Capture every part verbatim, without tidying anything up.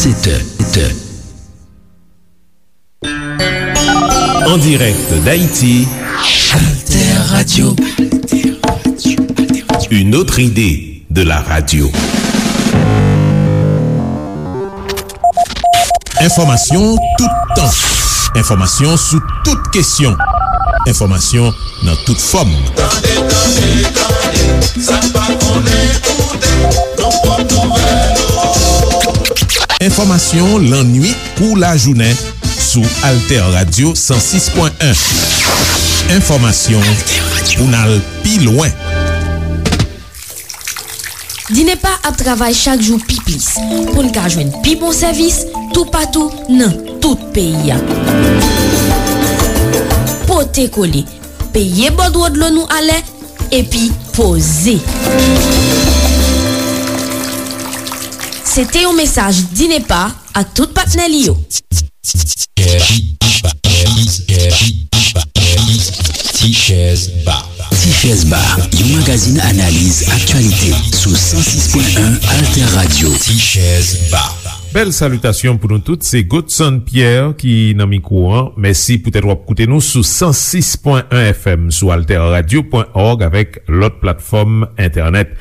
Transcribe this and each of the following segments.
Sèt è, sèt è. En direct d'Haïti, Alter Radio. Une autre idée de la radio. Enfòmasyon toutan. Enfòmasyon sou tout kesyon. Enfòmasyon nan tout fòm. Tande, tande, tande, sa n pa konnen koute, nou pran nouvèl ou. Enfòmasyon lannwit kou lajounen sou Alter Radio san sis pwen en. Enfòmasyon pou n al pi lwen. Dinepa ap travay chak jou pi plis pou n ka jwenn pi bon sèvis toupatou nan tout peyi a. Pote kole, peye bòdwo dlo nou alè, epi poze. Se te yon mesaj Dinepa ak tout patnè li yo. Tichèz Ba. Tichèz Ba, yon magazin analiz aktyalite sou san sis pwen en Alter Radio. Tichèz Ba. Bèl salitasyon pou nou tout, se Godson Pierre ki nan mikwo an. Mèsi poutèt w ap koute nou sou san sis pwen en F M, sou alterradio pwen org avèk lòt platfòm entènèt.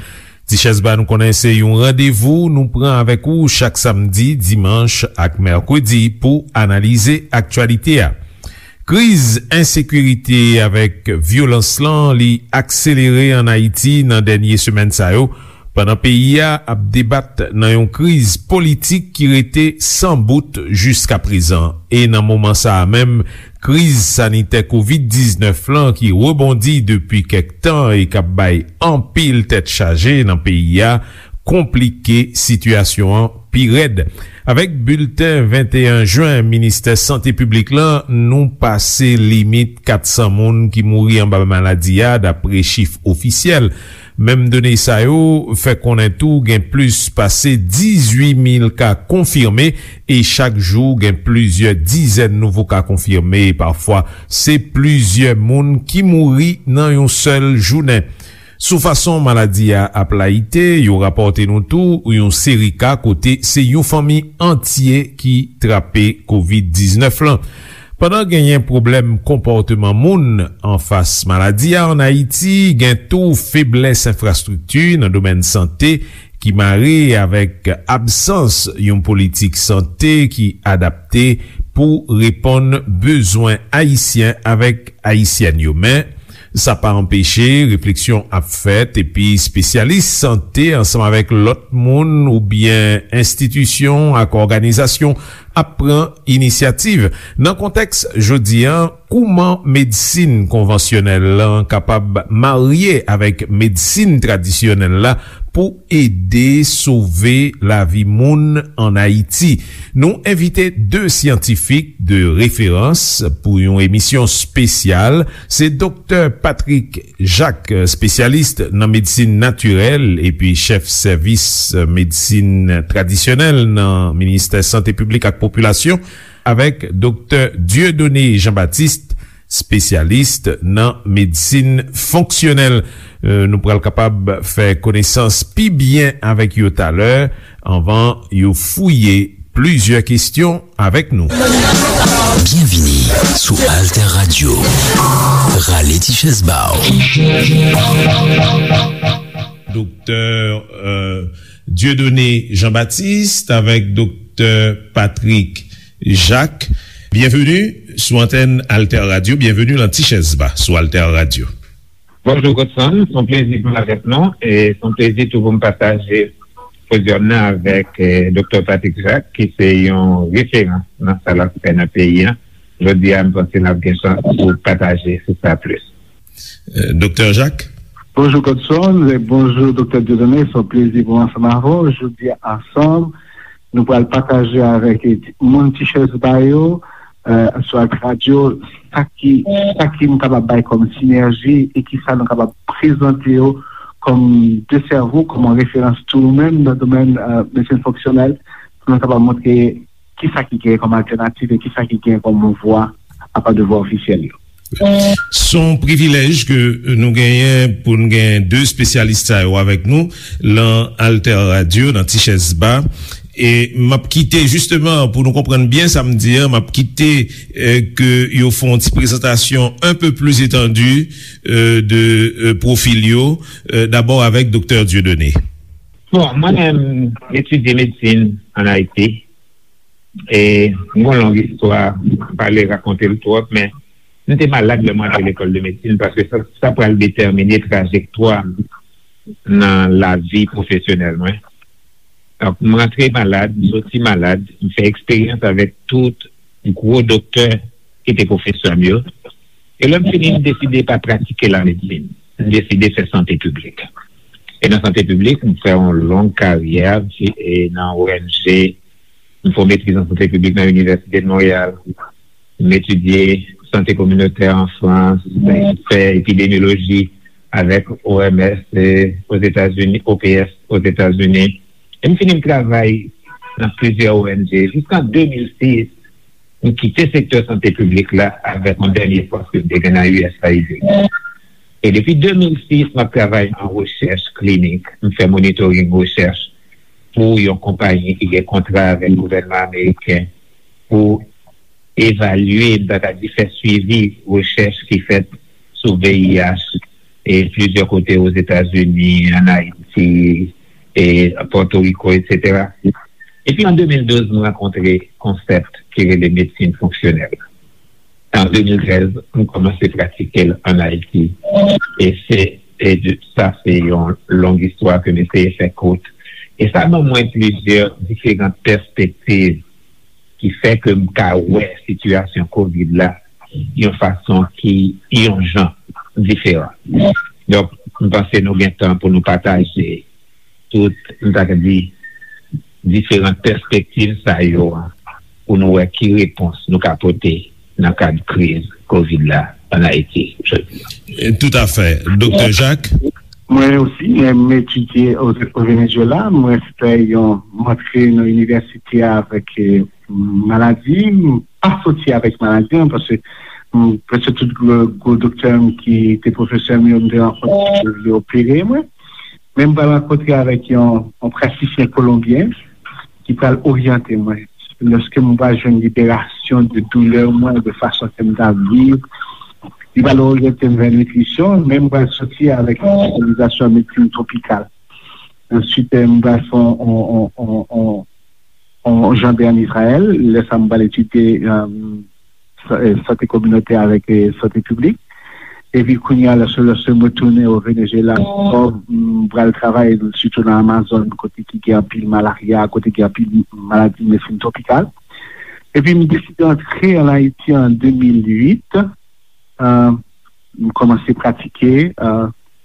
Tichèz Ba, nou konnen se yon randevou nou pran avèk ou chak samdi, dimanch ak mèkredi pou analize aktyalite a. Kriz ensekirite avèk vyolans lan, li akselere ann Ayiti nan dènye semèn sa yo, pandan peyi a ap debat nan yon kriz politik ki rete san bout jiskaprezan. E nan moman sa a menm, kriz sanitè kovid diznèf lan ki rebondi depi kèk tan e k ap bay anpil tèt chaje nan peyi a, konplike sitiyasyon an pi rèd. Avèk bilten venteyen jen Ministè Sante Piblik lan, nou pase limit kat san moun ki mouri anba maladi a, dapre chif ofisyèl. Menm done sa yo fè konnen tou gen plis pase dizuit mil ka konfime e chak jou gen plizyè dizèn nouvo ka konfime e pafwa se plizyè moun ki mouri nan yon sèl jounen. Sou fason maladi a ap layite, yo rapòte nou tou yon seri ka kote se yon fanmi antye ki trape kovid diznèf lan. Pandan genyen pwoblèm konpòteman moun anfas maladi a ann Ayiti, gen tou feblès enfrastrikti nan domèn sante ki mare avèk absans yon politik sante ki adapte pou reponn bezwen ayisyen avèk ayisyèn yo. Men, sa pa anpeche refleksyon ap fèt, epi espesyalis sante ansanm avèk lòt moun oubyen enstitisyon ak òganizasyon ap pran inisyativ. Nan kontèks jodi a, kouman medsin konvansyonèl lan kapab marye avèk medsin tradisyonèl la pou ede sove lavi moun ann Ayiti? Nou envite de syantifik de referans pou yon emisyon espesyal. Se Doktè Patrick Jacques, espesyalis nan medsin natirèl epi chèf sèvis medsin tradisyonèl nan Ministè Sante Piblik ak Popilasyon, avèk Doktè Dieudonné Jean-Baptiste, espesyalis nan medsin fonksyonèl. Euh, nou pral kapab fè konesans pi byen avèk yo talè, anvan yo fouye plizyè kesyon avèk nou. Byenvini sou Alter Radio. Rale ti chèz ba w. Doktè, euh, Dieudonné Jean-Baptiste avèk Doktè Patrick Jacques. Byenveni sou antèn Alter Radio. Byenveni nan Ti Chèz Ba sou Alter Radio. Bonjou, Godson. Se yon plezi pou m avèk nou. E se yon plezi tou pou m pataje podyòm nan avèk, eh, Doktè Patrick Jacques, ki se yon referans nan sa l ap fè nan peyi a. Jodi a, m panse n ap gen chans pou pataje sou sa plis. Eh, Doktè Jacques? Bonjou, Godson, e bonjou, Doktè Dieudonné. Se yon plezi pou m ansanm avè w. Jodi a, ansanm, nou pral pataje avèk moun Ti Chèz Ba yo, eh, sou Alter Radio, sa ki, sa ki nou kapab bay kòm sinèji e ki sa nou kapab prezante yo kòm de sèvo, kòm yon referans tou menm nan domèn, eh, medsin fonksyonèl, pou nou kapab montre ki sa ki gen kòm altènativ e ki sa ki gen kòm vwa apa de vwa ofisyèl yo. Se yon privilèj ke nou genyen pou n gen de espesyalis sa yo avèk nou lan Alter Radio, nan Ti Chèz Ba. E m ap kite, jisteman, pou nou konprann byen sa m di an, m ap kite, eh, ke yo fè yon ti prezantasyon un peu plus étendue, eh, de, eh, pwofil yo, eh, dabò avèk Doktè Dieudonné. Bon, mwen menm, m etidye medsin ann Ayiti. E m gon long istwa, m pa vle rakonte l twòp, men m te malad lè m rantre lekòl de medsin, paske sa, sa pral detèmine trajektwa m nan lavi pwofesyonèl mwen. Donk, m rantre malad, m soti malad, m fè eksperyans avèk tout gwo doktè ki te pwofesè m yo. E lè m fini, m deside pa pratike lamedsin. M deside fè sante piblik. E nan sante piblik, m fè yon long karyè, e nan O N G, m fè yon metriz an sante piblik nan Inivèsite de Monreyal. M etidye sante kominotè an Frans, m fè epidemyoloji avèk O M S, e, Ozetazini, O P S Ozetazini. E m fini m travay nan plizyè O N G. Jiskan de mil sis, m kite sektè sante piblik la avèk yon dènye pòs ke m te gen nan U S A I D. E depi de mil sis, m ap travay an rechèch klinik. M fè monitoring rechèch pou yon konpayi ki gen kontra avèk gouvènman ameriken pou evalye, m ta ka di fè swivi rechèch ki fèt sou V I H e plizyè kote Ozetazini, ann Ayiti, e Pòtoriko, etsetera. Epi an de mil douz, m rankontre konsèp ki rele medsin fonksyonèl. An de mil trèz, m kòmanse pratike l ann Ayiti. E se, e de, sa se yon long istwa ke m eseye fè kout. E sa ban mwen plizyè diferan pèspektiv ki fè ke m ka wè sitiyasyon kovid la yon fason ki yon jan diferan. Donk, m panse nou gen tan pou nou pataje tout, m ta ka di, diferan pèspektiv sa yo a, pou nou wè ki repons nou ka pote nan kad kriz kovid la ann Ayiti jodi a. Toutafè. Doktè Jacques? Mwen osi, mwen, m etidye o, o Venezuela. Mwen fè yon, m antre nan inivèsite a avèk, eh, maladi. M pa soti avèk maladi an, paske, mm, prèske tout gwo, gwo doktè m ki te pwofesè m yo, m te rankontre yo, yo opere mwen. Men m pral rankontre avèk yon, yon pratisyen kolonbyen ki pral oryante mwen. Lòske m pral jwenn liberasyon de doulè mwen, de fason ke m t ap viv, li pral oryante m vè nitrisyon, men m pral soti avèk yon espesyalizasyon an medsin twopikal. Answit, eh, m pral fè yon, yon, yon, yon, yon, yon janbe ann Izrayèl. Lè sa a, m pral etidye, eh, sa-, eh, sante kominotè avèk, eh, sante piblik. Epi kounye a, lòske, lòske m retounen o Venezuela ankò, m pral travay sitou nan Amazòn, kote ki gen anpil malarya, kote gen anpil maladi medsin twopikal. Epi m deside antre ann Ayiti an de mil uit. Eh, m kòmanse pratike, eh,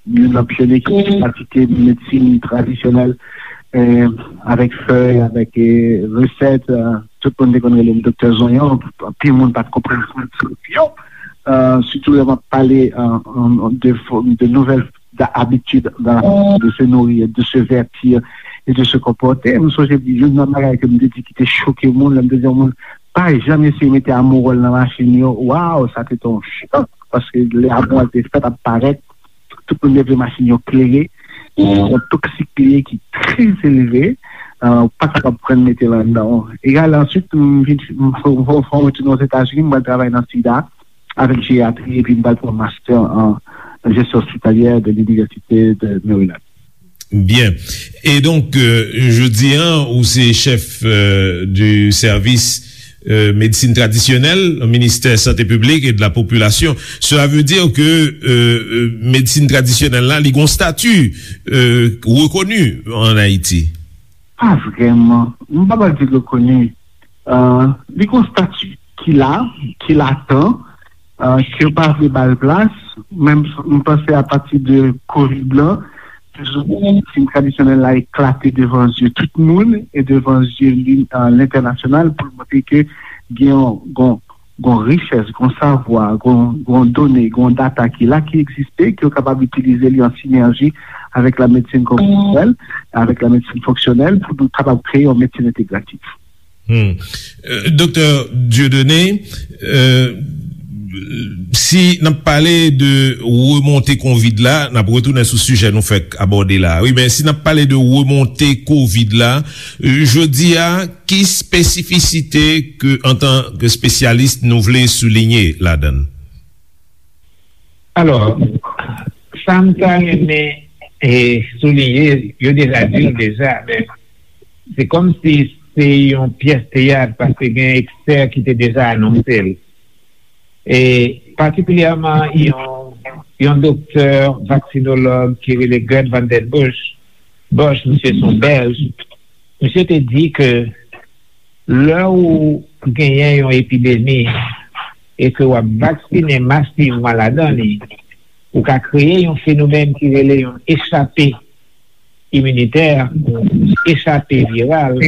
youn nan pyonye ki te pratike medsin tradisyonèl, eh, avèk fèy, avèk, eh, resèt. Eh, tout moun te konn rele m Doktè Zonyon. Anpil moun pa t konprann sa m di yo. Eh, sitou lè m ap pale, eh, de fo-, de nouvèl da-, abitid dans la façon de se nourrir, de se vêtir et de se comporter. M sonje youn nan bagay ke m te di ki te choke moun, lè m te di yon moun, pa janm eseye mete amowòl nan machin yo. Waw, sa te te yon chòk, paske lè amowòl te fèt ap parèt, tout moun te vle machin yo klere. Se yon toksik li ye ki trè elve, eh, ou pa kapab pran l mete l anndan w. Egal, answit, m vin, m, m, m retounen Ozetazini, m pral travay nan sida avèk jeryatri, epi m pral pran master an jesyon ospitalyè de l'Université de Maryland. Byen. E donk, euh, jodi a, ou se chèf, euh, du service, euh, médecine traditionnelle, au ministère Santé Publique et de la Population. Cela veut dire que, euh, euh, medsin tradisyonèl la, li gon stati, euh, rekoni an Ayiti? Pa vrèman. M pa pral di l rekoni. Euh, li gon stati ki la, ki latan, euh, ke yo pa vle ba l plas. Men m, m panse apati de kovid la, plizoumwen medsin tradisyonèl la eklate devan zye tout moun e devan zye li, euh, lentènasyonal pou l montre ke gen yon, gon, gon richès, gon savwa, gon, gon done, gon data ki la, ki egziste, ke yo kapab itilize li an sinèji avèk la medsin konvansiyonèl, avèk la medsin fonksyonèl, pou nou kapab kreye yon medsin entegratif. Hmm. Euh, Doktè Dieudonné, euh, Si n ap pale de remonte kovid la, n ap retounen sou sijè nou fèk abòde la. Wi, men si n ap pale de remonte kovid la, jodi a, ki espesifisite ke, antan ke espesyalis, nou vle soulinye ladan l? Alò, sa m ta renmen e soulinye, yo deja di l deja, men se kòmsi se yon pyès teyat paske gen ekspè ki te deja anonse l. E patikilyèman yon, yon doktè vaksinolog ki rele Gerd van den Bush, Bush, misye se yon Bèlj, misye te di ke lè ou genyen yon epidemi e ke w ap vaksinen masivman ladan li, ou ka kreye yon fenomèn ki rele yon echape iminitè, echape viral,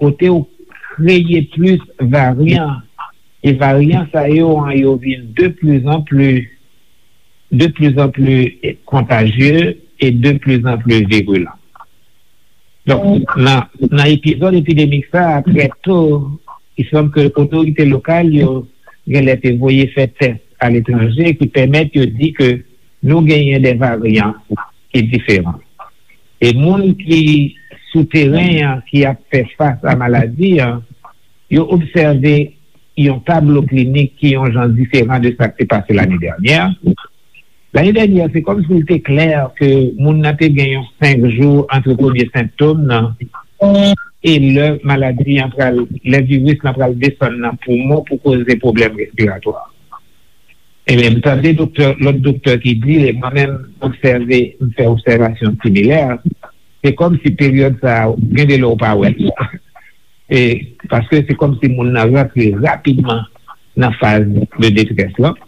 kote ou kreye plis varyan, e varyan sa yo an yo vin de plus en plus, de plus en plus kontajye e de plus en plus virulent. Donk, nan, nan epizòd epidemik sa a, trè to, i sanm ke otorite lokal yo genlè te voye fè tès aletranje ki pèmèt yo di ke nou genyen de varyan ki diferan. E moun ki sou teren an, ki ap fè fas a maladi an, yo obsève yon tablo klinik ki yon jan diferan de sa k te pase lane dènyè. Lane dènyè, se kòmsi l te klè ke moun nan te gen yon senk jou ant premye sentòm nan e lè maladi an pral, lè viris lan pral desann nan poumon pou koze pwoblèm respiratwa. Ebyen, m tande doktè, lòt doktè ki di, e mwen menm, m obsève, m fè obsèvasyon similè, se kòmsi peryòd sa a, gen de lè w pa wè l. E, paske se kòmsi moun nan rantre rapidman nan faz de detrès lan.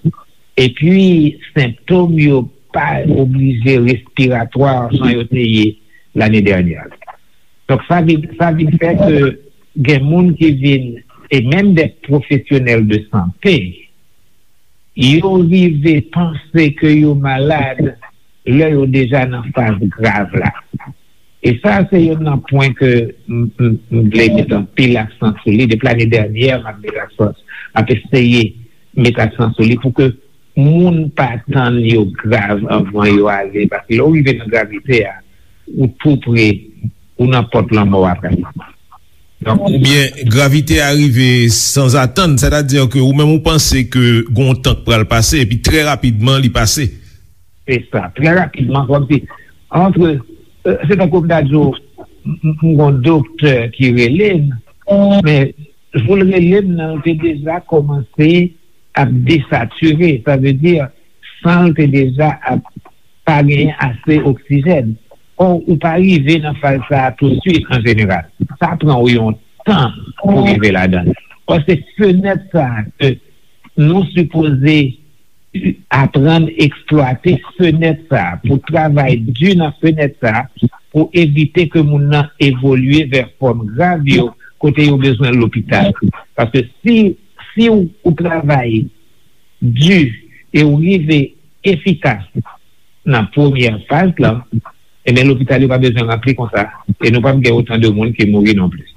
Epi, sentòm yo pa oblije respiratwa jan yo te ye lane dènyè. Donk, sa vin, sa vin fè ke gen moun ki vin, e menm de pwofesyonèl de sante, yo rive panse ke yo malad lè yo deja nan faz grav la. E sa, se youn nan pwen ke m, m, m vle met anpil aksan sou li. Depi lane dènyè, m ap met aksan, m ap eseye met aksan sou li pou ke moun pa tann yo grav anvan yo ale. Paske lè w rive nan gravite a, ou tou pre, ou nan pòt lanmò a pratikman. Donk, oubyen gravite a rive sanzatann, sètadi ke ou menm ou panse ke gon tan k pral pase, epi trè rapidman li pase. Se sa, trè rapidman, kòmsi, antre, euh, se tankou m ta di w, m, m, m gon doktè ki rele m, men jou l rele m nan, l te deja kòmanse ap desatire, sa vle di, san l te deja ap pa genyen ase oksijèn. Ò, ou pa rive nan faz sa a tousuit an jeneral. Sa pran w yon tan pou rive ladan l. Paske fenèt sa a ke nou sipoze aprann eksplwate fenèt sa a, pou travay di nan fenèt sa a, pou evite ke moun nan evolye vè fòm grav yo, kote yo bezwen lopital. Paske si, si w, ou travay di e w rive efikas nan premyè faz lan, ebyen, lopital yo pa bezwen ranpli konsa, e nou p ap gen otan de moun ki mouri non plis.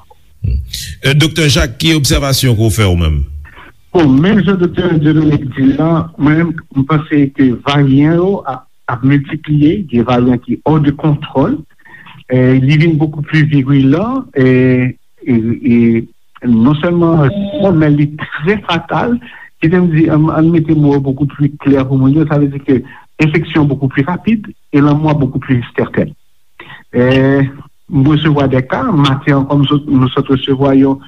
Euh, Doktè Jacques, ki obsèvasyon ke w fè ou menm? Bon, menm jan Doktè Dieudonné di la, mwen menm, m panse ke varyan yo ap, ap miltipliye, gen varyan ki hors de contrôle, e li vin beaucoup plus virulent, e, e, e non sèlman, men li trè fatal, ki te m di, ann, ann mete mo yo beaucoup plus clair pou moun yo, sa vle di ke enfeksyon beaucoup plus rapid e lanmò beaucoup plus certaine. E, m resevwa de ka, maten an, kòm sot, nou sot resevwa yon,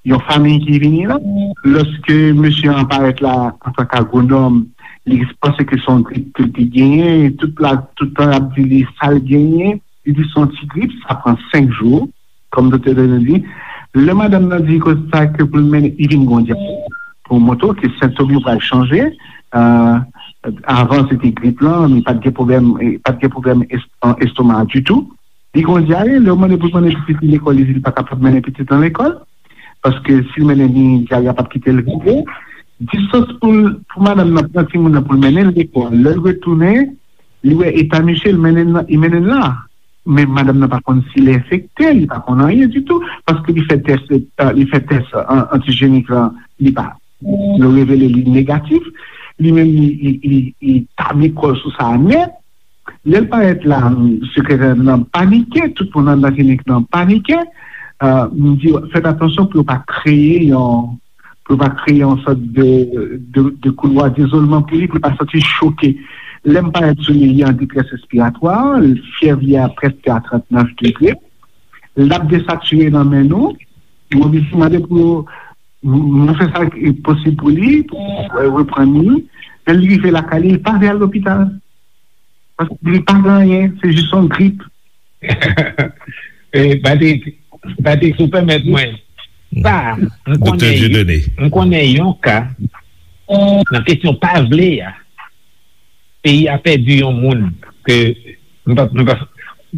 yon fanmi ki vini la. Lòske mesye an parèt la antanke agwonòm, li panse ke se yon grip ke l te genyen, e tout la, tout tan y ap di li sa l genyen, li di se yon ti grip, sa pran senk jou, kòm doktè Dieudonné di. Lè madanm nan di konsa ke pou l mennen, li vin gon dyare, pou montre w ke sentòm yo pral chanje. Euh, avan, se te grip lan, li pa t gen pwoblèm, pa t gen pwoblèm es-, estoma ditou. Li gon dyare, lè w mande pou l mennen pitit li lekòl, li di li pa kapab mennen pitit lan lekòl. Paske si l mennen li, dyare a p ap kite l rive. Distans pou l, pou madanm nan pran timoun nan pou l mennen l lekòl. Lè l retounen, li wè eta misye, l mennen l nan, li mennen l la. Men madanm nan pa konn si l enfekte, li pa konn anyen ditou, paske li fè tès, euh, li fè tès, euh, antijenik lan, li pa, yo revele li negatif, li menm li, li, li, li tabli kò l sou sa a nèt. Lè l parèt la, sekretè nan panike, tout moun anndan klinik nan panike. Euh, m di yo, fèt atansyon pou yo pa kreye yon, pou yo pa kreye yon sòt de, de, de koulwa dizolman pou li, pou li pa santi choke. Lè m parèt sou li, li an detrès respiratwa, fyèv li a prèske a trannèf degre. L ap desatire nan men nou. M oblije mande pou yo, m, m fè sa ki posib pou li, pou, euh, reprann li. Lè l rive lakay li, li pa vle al lopital. Paske li pa gen anyen, se jis yon grip. Eh, Patrick, Patrick, si w pèmèt mwen, sa, m konnen, m konnen yon ka nan kesyon pa vle a, peyi a pèdi yon moun ke, m pa, m pa,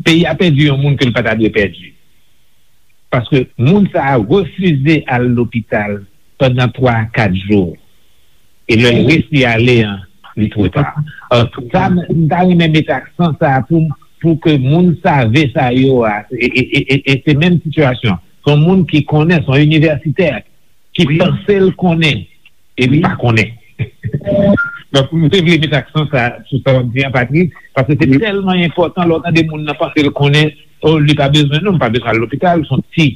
peyi a pèdi yon moun ke l pa ta dwe pèdi. Paske moun sa a refize al lopital pandan twa a kat jou. E lè l resi ale an, li twò ta. Alò, sa, m ta renmen met aksan sa a pou, pou ke moun save sa yo a, e, e, e, e, e se menm sitiyasyon. Se yon moun ki konnen, se yon inivèsitè ki panse l konnen, e li pa konnen. Donk, m te vle met aksan sa sou sa w ap di an, Patrick, paske se tèlman enpòtan lè w tande moun nan panse l konnen, oh, li pa bezwen, non, m pa bezwen al lopital, se yon ti,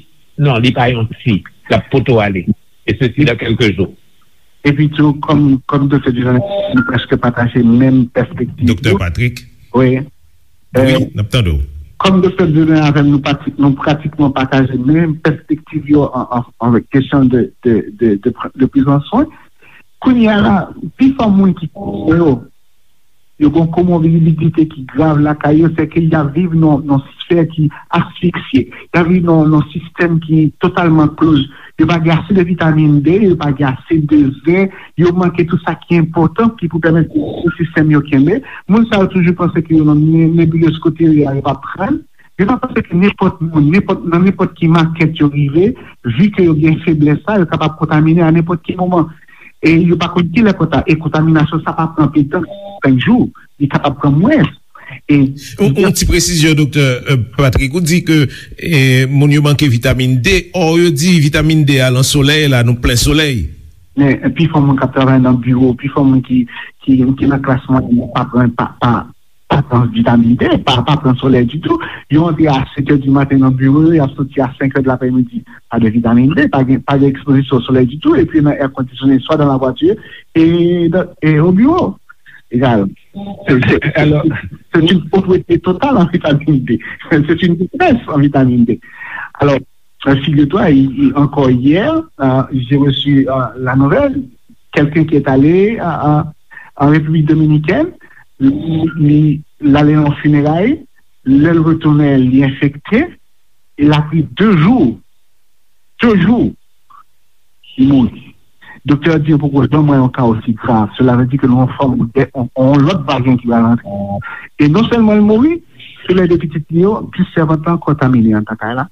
non, li pa yon ti, l ap poto ale. E sesi dan kèlke jou. Epi tou, kòm, kòm Doktè Dieudonné, nou prèske pataje menm pèspektiv. Doktè Patrick? Wi. Wi, n ap tande w. Kòm Doktè Dieudonné avè m, nou pati-, nou pratikman pataje menm pèspektiv yo an, an, an kesyon de, de, de, de, de prizan swen. Kounye a la, pifò moun ki konnen yo, yo gen komorbidite ki grav lakay yo, se ke y ap viv nan, nan sfè ki asfiksye. Y ap viv nan, nan sistèm ki totalman close. Yo pa gen ase de vitamin D, yo pa gen ase de zen, yo manke tout sa ki enpòtan ki pou pèmèt pou sistèm yo kenbe. Moun sa yo toujou panse ke yo nan ne-, nebilez kote yo ye a, yo p ap pran l. Yo pa panse ke nenpòt moun, nenpòt, nan nenpòt ki makèt yo rive, vi ke yo gen feblès sa, yo kapab kontamine a nenpòt ki moman. E yo pa konn kilè konta-, e kontaminasyon sa pa pran anpil tan, senk jou, li kapab pran mwens. E yon, yon ti presizyon, Doktè, euh, Patrick, ou di ke, eh, moun yo manke vitamin D, or yo di vitamin D a nan solèy la, nou plen solèy. Men, pifò moun k ap travay nan biwo, pifò moun ki, ki, ki nan klas mwayèn, pa pran, pa, pa, pa pran vitamin D, pa, pa pran solèy ditou. Yo antre a sèt è di maten nan biwo yo, y ap soti a senk è de laprèmidi. Pa de vitamin D, pa gen, pa gen ekspozisyon solèy ditou, epi nan èkondisyone, swa dan lavwati e, e o biwo. Egal. Se, se, c'est une pauvreté totale en vitamine D. C'est une détresse en vitamine D. Alors, euh, figure-toi, i-, i-, encore hier, euh, j'ai reçu, euh, la nouvelle, quelqu'un qui est allé, euh, euh, en République dominicaine, li, li, l ale nan fineray, lè l retounen, li enfekte, e l ap ri de jou, de jou, li mouri. Doktè a di yo poko janm wè yon ka osi grav. Cela veut dire que nou an fòm de, on, on lòt varyan ki pral antre. E non sèlman l mouri, se lè de pitit li yo, plis sèvant lan kontamine anndan kay la.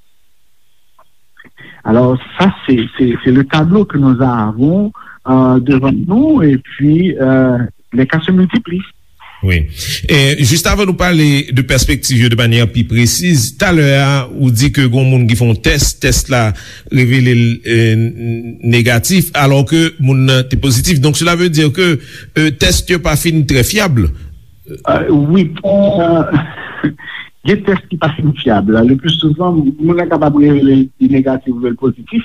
Alors, ça, c'est, c'est, c'est le tableau que nous avons, euh, devant nous, et puis, euh, les cas se multiplient. Wi. E, jis avan nou pale de pèspektiv yo de manyè pi presiz, talè a, ou di ke gon moun ki fè yon tès, tès la revele l, e, n-, negatif, alò ke moun nan te pozitif. Donk, cela veut dire que, e, tès yo pa fin trè fyab. Euh, wi. Euh, gen tès ki pa fin fyab. Le plus souvent, moun nan kapab revele li negatif oubyen l pozitif.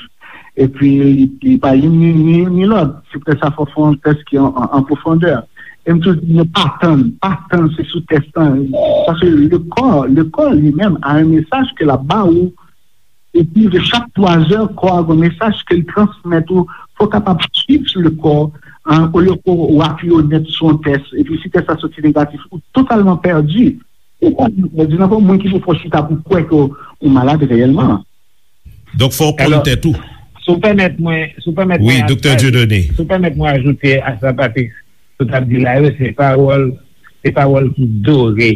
Epi, li, li pa youn ni, ni, ni lòt. Se poutèt sa, fò fè yon tès ki an, an, an pwofondè. E m toujou di nou pa tann, pa tann se sou tès lan. Paske le corps, le corps li menm a un message ke l ap ba ou. Epi, de chak twa zè, kò a gen yon mesaj ke l transmèt ou. Fò w kapab swiv le corps, hein, olye ke w apiye w nèt sou yon tès. Epi, si tès la soti negatif, ou totalman pèdi. Ou pa di nan fò moun ki pou fè w chita pou kwè ke w malad reyèlman. Donk, fò w konn tèt ou. Si w pèmèt mwen, si w pèmèt mwen, wi, Doktè Dieudonné, si w pèmèt mwen ajoute a sa Patrick sot ap di la yo, se pawòl, se pawòl ki dore.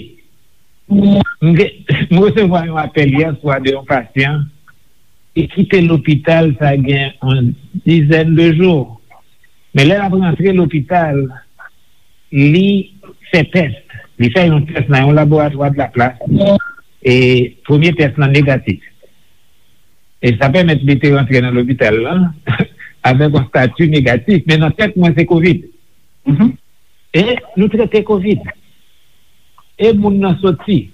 M gen, m resevwa yon apèl yè swa de yon pasyan ki kite lopital sa gen yon dizèn de jou. Men lè l ap rantre lopital, li fè tès. Li fè yon tès nan yon laboratwa de la plas. E premye tès lan negatif. E sa pèmèt li te rantre nan lopital lan. avèk yon stati negatif, men nan tèt mwen se kovid. E nou trete kovid. E moun nan soti.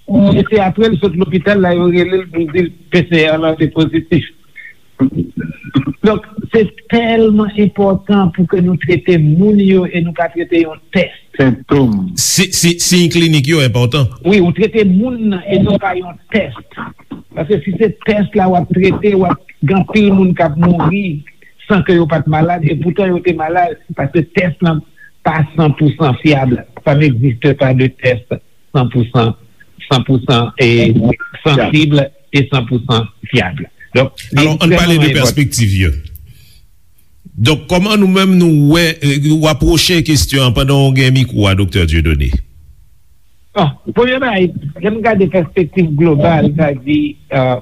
E se apre l sot lopital la, yo rele l pou di l P C R lan te pozitif. Donk, se tèlman enpòtan pou ke nou trete moun yo e nou pa trete yon tès. Sentom. Si, si, siy klinik yo enpòtan. Wi, ou trete moun nan e non pa yon tès. Paske si se tès la w ap trete, w ap gen anpil moun k ap mouri san ke yo pa t malad, e poutan yo te malad, paske tès lan pa san pou san fyab. Ça n'existe pas de test cent pour cent, cent pour cent et sensible et cent pour cent fiable. Donk, li Alò, ann pale de ekstrèmman enpòtan. Pèspektiv yo. Donk, kòman nou menm nou wè, eh, w apwoche kesyon an pandan w gen mikwo a, Doktè Dieudonné? Bon, premye bagay, lè m gade pèspektiv global, sa di, euh,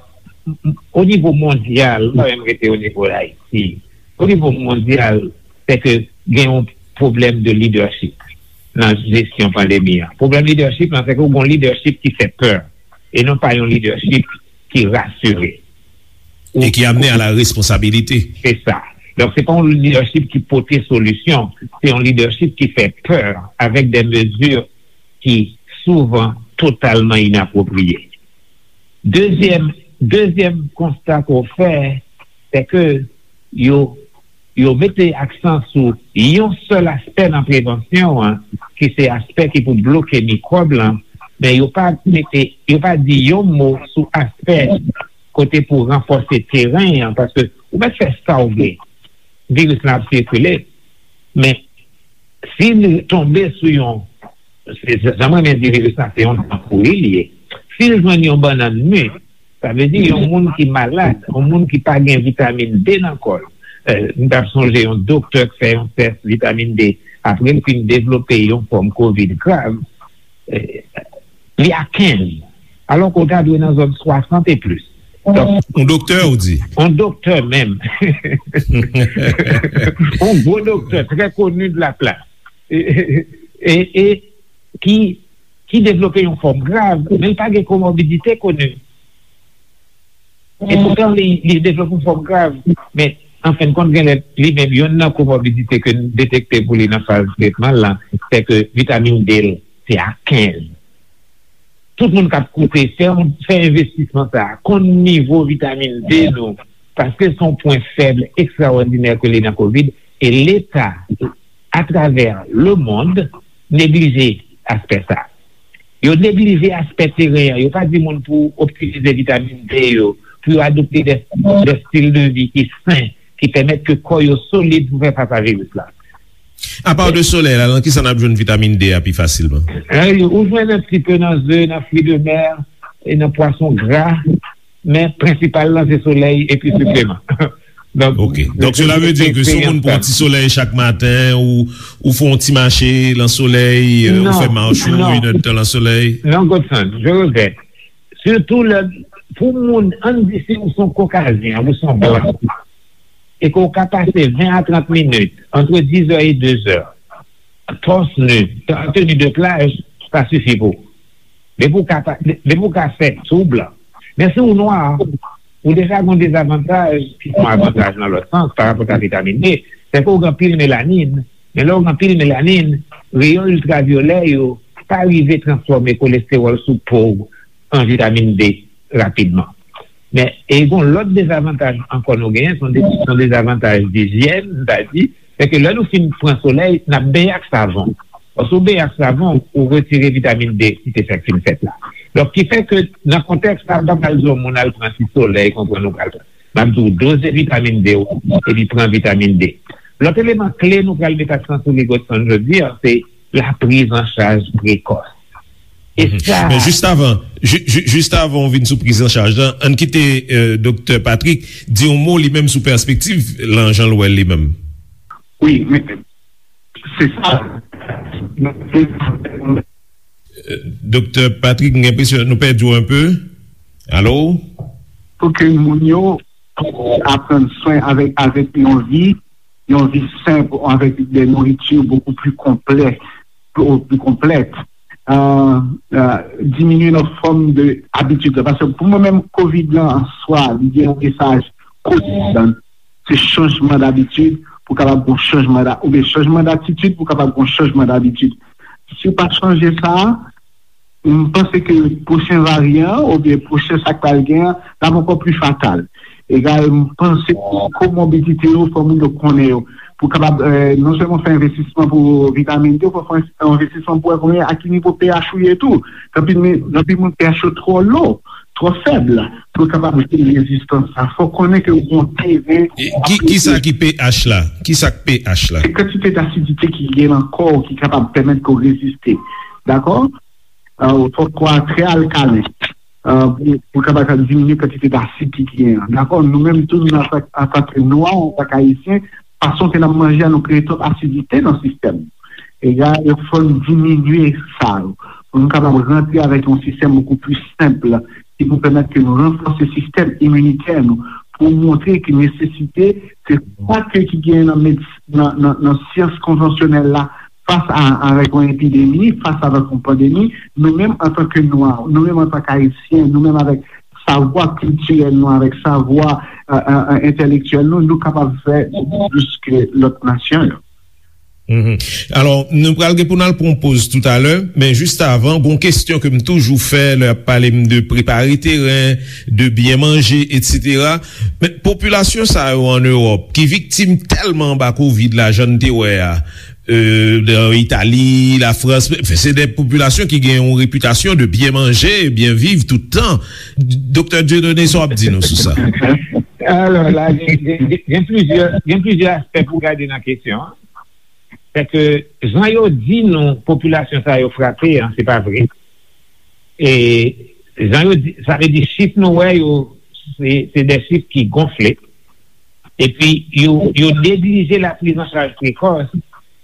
o nivo mondyal, m pa menm rete o nivo Ayiti. O nivo mondyal, se ke gen yon pwoblèm de lidèchip nan jesyon pandemi an. Pwoblèm lidèchip lan, se ke w gen yon lidèchip ki fè pè, e non pa yon lidèchip ki rasire. E ki amene a la responsabilite. Se sa. Donk, se pa yon lidèchip ki pote solisyon, se yon lidèchip ki fè pè avèk de mezi ki souvan totalman inapwopriye. Dezyèm, dezyèm konsta ke w fè, se ke yo, yo mete aksan sou yon sèl aspè nan prevansyon an, ki se aspè ki pou bloke mikwòb lan, men yo pa mete, yo pa di yon mo sou aspè kote pou ranfòse teren an, paske ou mèt fè sa w vle, viris lan ap sikile, men si l tonbe sou yon, se, se, jan mwen renmen di viris la, se yon dan pouri li ye. Si l jwenn yon bannann mi, sa vle di yon moun ki malad, yon moun ki pa gen vitamin D nan kò l. Eh, m t ap sonje yon doktè k fè yon tès vitamin D, apre l fin devlope yon fòm kovid grav, eh, li a kenz, alò ke w ta dwe nan zòn swasant e plis. Donk, yon doktè, ou di? Yon doktè menm. Yon gwo doktè, trè koni de la plas. E, e, e ki, ki devlope yon fòm grav, men l pa gen komorbidite koni. E poutan, li, li devlope yon fòm grav. Men, an fen de kont, genlè, li menm, youn nan komorbidite ke n detekte pou li nan faz tretman l lan, se ke vitamin D l, se a kenz. Tout moun k ap koute, fè yon, fè envestisman sa a, konn nivo vitamin D nou, paske se yon pwen fèb ekstrawòdinè ke li nan kovid, e Leta, atravè lemonn, neglije aspè sa a. Yo neglije aspè teren an. Yo pa di moun pou optimize vitamin D yo, pou yo adopte de, de stil de vi ki sen, ki pèmèt ke kò yo solid pou fè fas a viris la. Apa de solèy la, nan kisa n ap jwenn vitamin D a pi fasilman? Eh, ou jwenn un petit peu nan ze, nan fruits de mer, e nan pwason gra, men prensipal lan se solèy epi sipleman. Donk, ok. Donk, cela veut dire que si yon moun pran ti solèy chak maten, ou, ou fè yon ti mache nan solèy, euh, ou fè mach ou, une heure de temps nan solèy. Non, Godson, je regrette. Surtout lè, pou moun, ann di si ou se yon Kokazyen, ou se yon blan, e ke w ka pase ven a trant minit, entre dix heures et deux heures, torse nu, en tenue de plage, sa sifi pou ou. Depi w ka pa, depi w ka fè sou blan. Men si w nwa, ou deja gen yon dezavantaj, ki se yon avantaj nan lòt sans, pa rapò a vitamin D, se ke w gen anpil melanin. Men lè w gen anpil melanin, reyon iltravyolè yo pa rive transfòme kolestewòl sou po w an vitamin D rapidman. Men, e gen yon lòt dezavantaj ankò nou genyen, se yon de-, se yon dezavantaj dijyèn, m ta di, se ke lè nou fin pran solèy, n ap benyen ak savon. Lòske w benyen ak savon, ou retire vitamin D ki te fèk fin fèt la. Donk, ki fè ke nan kontèks sa, m pa pral di yon moun al pran ti solèy, konprann ou pral pran. M ap di w doze vitamin D ou, epi pran vitamin D. Lòt eleman kle nou pral met aksan sou li, Godson, jodi a, se la prise en charge précoce. E sa. Men jis avan, ju-, ju-, jis avan w vin sou priz an chaj lan, ann kite, euh, Doktè Patrick di yon mo li menm sou pèspektiv lan, jan l wè l li menm. Wi, men se sa. Euh, Doktè Patrick, m gen enpresyon nou pèdi w un peu. Alo? Pou ke moun yo aprann swen avèk, avèk yon vi, yon vi senp, avèk de nouriti bokou pli konplè, pli, pli konplèt. Euh, euh, diminye nan fòm de abitid la. Paske pou mwen menm, kovid lan an swa, li gen yon mesaj kotidan. se chanjman dabitid pou kapab gon chanjman da, oubyen chanjman datitid pou kapab gon chanjman dabitid. Si w pa chanje sa, m panse ke pwochen varyan an oubyen pwochen sa k pral gen an, l ap ankò pli fatal. Egal, m panse komorbidite yo, fò moun yo konnen yo. Pou kapab, eh, non sèlman fè envestisman pou vitamin D, fò fè envestisman pou wè konbyen, a ki nivo pH ou ye tou. Gen anpil moun, gen anpil moun pH yo twò lo, twò fèb, pou yo kapab jwenn rezistans sa. Fò konnen ke ou gon teren. E ki, ki sa ki pH la? Ki sa k pH la? Se kantite d'asidite ki gen nan kò w ki kapab pèmèt ke w reziste. Dakò? Ah, ou fòk kò a trè alkalen. Ah, pou, pou kapab diminye kantite dasid ki genyen an. Dakò? Nou menm tou, nou, antank, antank nwa, antank ayisyen, fason ke n ap manje a, nou kreye twòp asidite nan sistèm. Egal, fò n diminye sa yo. Pou nou kapab rantre avèk yon sistèm bokou pli senp, ki pou pèmèt ke nou ranfòse sistèm iminitè nou, pou montre ke nesesite, se sa ke ki genyen nan medis-, nan, nan, nan syans konvansyonèl la, fas a, avèk yon epidemi, fas avèk yon pandemi, nou menm antanke nwa, nou menm antanke ayisyen, nou menm avèk savwa kiltirèl nou, avèk savwa, eh, eh, eh, entèlektyèl nou, nou kapab fè bokou plis ke lòt nasyon yo. Mhm. Alò, nou pral gen pou n al pran yon poz toutalè, men jis avan, gon kesyon ke m toujou fè lè y ap pale m de prepare teren, de byen manje, etsetera. Men popilasyon sa yo ann Ewòp, ki viktim tèlman anba kovid la, jan n te wè a, euh, nan Itali, Lafrans, men, se de popilasyon ki gen yon repitasyon de byen manje, byen viv tout tan. Doktè Dieudonné, sa w ap di nou sou sa? Alò, la, gen, gen, gen, gen plizyè, gen plizyè aspè pou gade nan kesyon an. Se ke jan yo di nou popilasyon sa yo frape an, se pa vre. E jan yo di, sa vle di chif nou wè yo, se, se de chif ki gonfle. Epi yo, yo neglije la priz an chaj prekòs.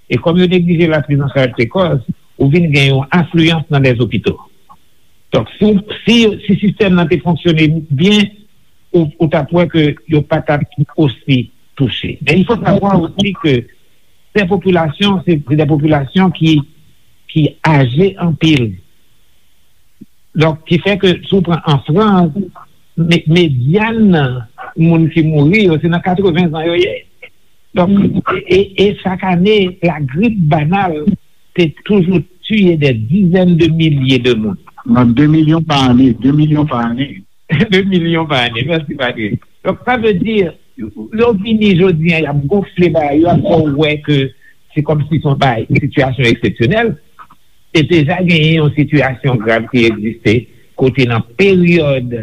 E kòm yo neglije la priz an chaj prekòs, ou vin gen yon afliyans nan lè zopito. Donk, si, si, si sistèm nan te fonksyone byen, ou, ou t ap wè ke yo pa t ap osi touche. Men il faut savoir aussi que ces populations, c'est, c'est des populations qui, qui âgées anpil. Donk, ki fè ke si w pran an Frans, me-, medyan moun ki mouri yo, se nan katreven zan yo ye. Donk, e, e, e chak ane, la grippe banale te toujou tiye des dizaines de milliers de moun. Nan de milyon pa ane, de milyon pa ane. De milyon pa ane. Mèsi, Patrick. Donk, sa vle di, yo vini jodi a, y ap gonfle bagay yo, y ap fè w wè ke se kòmsi se yon bagay, yon sitiyasyon eksepsyonèl. Te deja genyen yon sitiyasyon grav ki egziste, kote nan peryòd,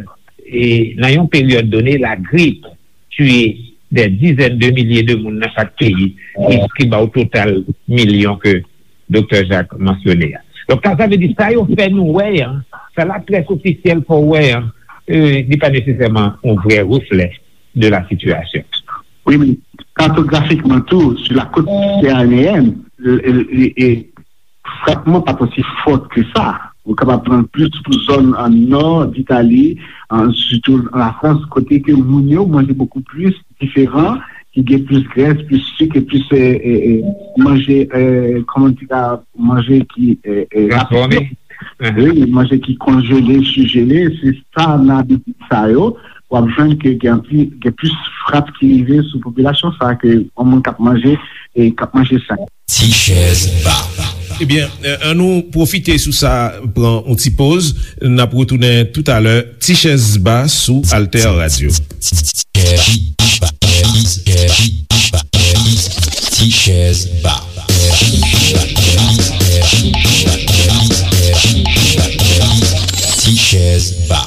e, nan yon peryòd done, lagrip tiye des dizaines de milliers de moun nan chak peyi, ki, ki ba w total milyon ke Doktè Jacques mansyone a. Donk, sa, sa vle di, sa yo fè nou wè an, sa laprès ofisyèl fè w wè an, euh, li pa nesesèman yon vrè reflè de la situation. Wi, men katografikman tou, sou la côte méditerranéenne, e, e, e, frapman pa t osi fò ke sa. Ou kapab pran plis pou zòn an nò d Itali, an, sitou an Lafrans, kote ke moun yo manje bokou plis diferan, ki gen plis grès, plis sik, e plis, e, e, e, manje, e, kòman di la, manje ki, e, e, rapid. Wi, manje ki konjele, sijele, se sa nan abitid sa yo. W ap jwenn ke gen pli, gen plis frap ki rive sou popilasyon sa ke yon moun k ap manje e k ap manje sen. Ti chèz ba. Ebyen, eh, annou pwofite sou sa, pran yon ti poz. N ap retounen toutalè. Ti chèz ba sou Alter Radio. Ti chèz ba. Ti chèz ba.